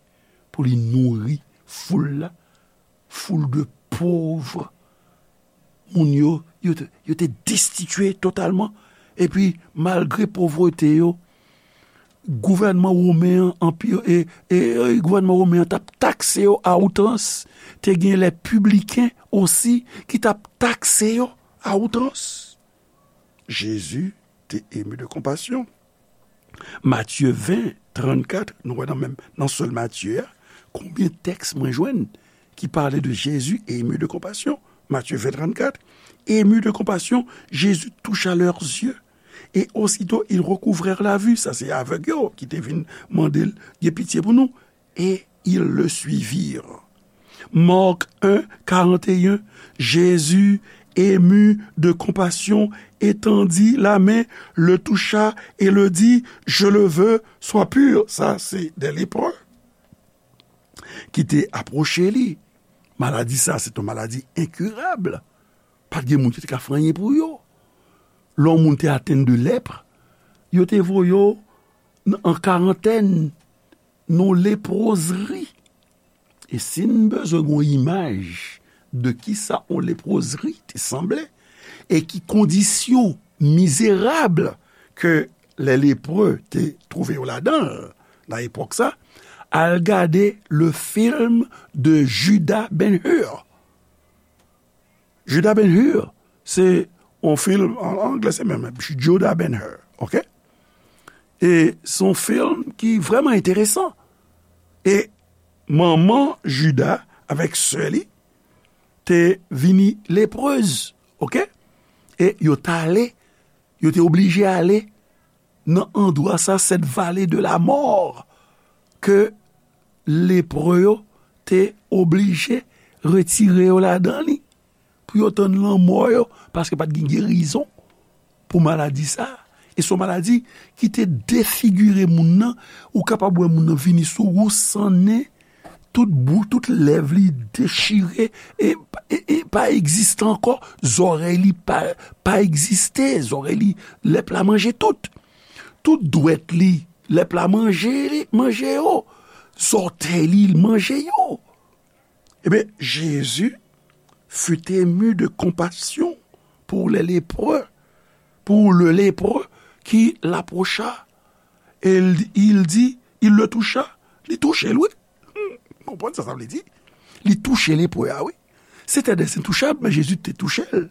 pou li nouri foul la, foul de pov moun yo, yo te, yo te destitye totalman. Epi, malgre povrete yo, gouvènman women an, anpi, e, e, e, gouvènman women an t ap takse yo a outrans. Te gen lè pibliken osi ki t ap takse yo a outrans. Jezi te emu de konpasyon. Matye ven, trannkat, nou wè nan menm, nan sèl Matye a, konbyen tèks mwen jwenn ki pale de Jésus ému de compassion? Matye ven, trannkat, ému de compassion, Jésus toucha leurs yeux, et aussitôt ils recouvrèrent la vue. Sa se avèg yo ki te vin mande l gen pitye pou nou. Et ils le suivirent. Marc un, quarante et un, Jésus, ému de compassion, étendit la main, le toucha et le dit, "Je le veux, sois pur." Sa se de lepre ki te apwoche li. Maladi sa, se yon maladi enkirab. Pa t gen moun ki te ka fè anyen pou yo. Lè yon moun te atenn de lèpre, yo te voye yo n-, an karantèn, nan lepwozri. E si n bezwen yon imaj de kisa yon lepwozri te sanble, e ki kondisyon mizerab ke lè lepre te twouve yo ladan l nan epòk sa, al gade le film de Judah Ben-Hur. Judah Ben-Hur, se yon film, an anglè se menm, Judah Ben-Hur, oke? E se yon film ki vrèman enteresan. E manman Judah avèk sè li te vini leprez, oke? E yo t ale, yo te oblije ale nan andwa sa, cette vallée de la mort, ke lepre yo te oblije retire yo ladan li, pou yo tann lanmò yo, paske pa t gen gerizon pou maladi sa. E se yon maladi ki te defigire moun nan, ou kapab wè moun nan vini sou ou san nen, tout bou, tout lèv li dechire, e, e, e pa egziste ankò, zòrèy li pa, pa egziste, zòrèy li, lèp la manje tout. Tout dwèt li, lèp la manje li, manje yo. Zòtèy li, l manje yo. Ebyen, Jésus fut ému de compassion pour les lépreux, pour le lépreux qui l'approcha, et il, il dit, il le toucha, li touche l, wi. Hmm, konprann sa sa vle di? Li touche lepre a, wi. C'était des intouchables, men Jezi te touche l.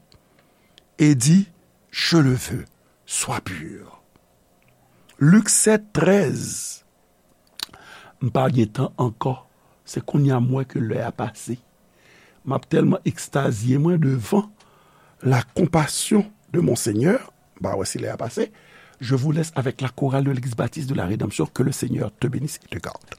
E di, "Je le veux, sois pur." Lik sèt, trèz. M pa gen tan ankò. Se kounye a m wè ke lè a pase. M ap tèlman ekstazye mwen devan la compassion de mon Seigneur. M pa wè si lè a pase. Je vous laisse avec la chorale de l'Église baptiste de la Rédemption. Que le Seigneur te bénisse et te garde.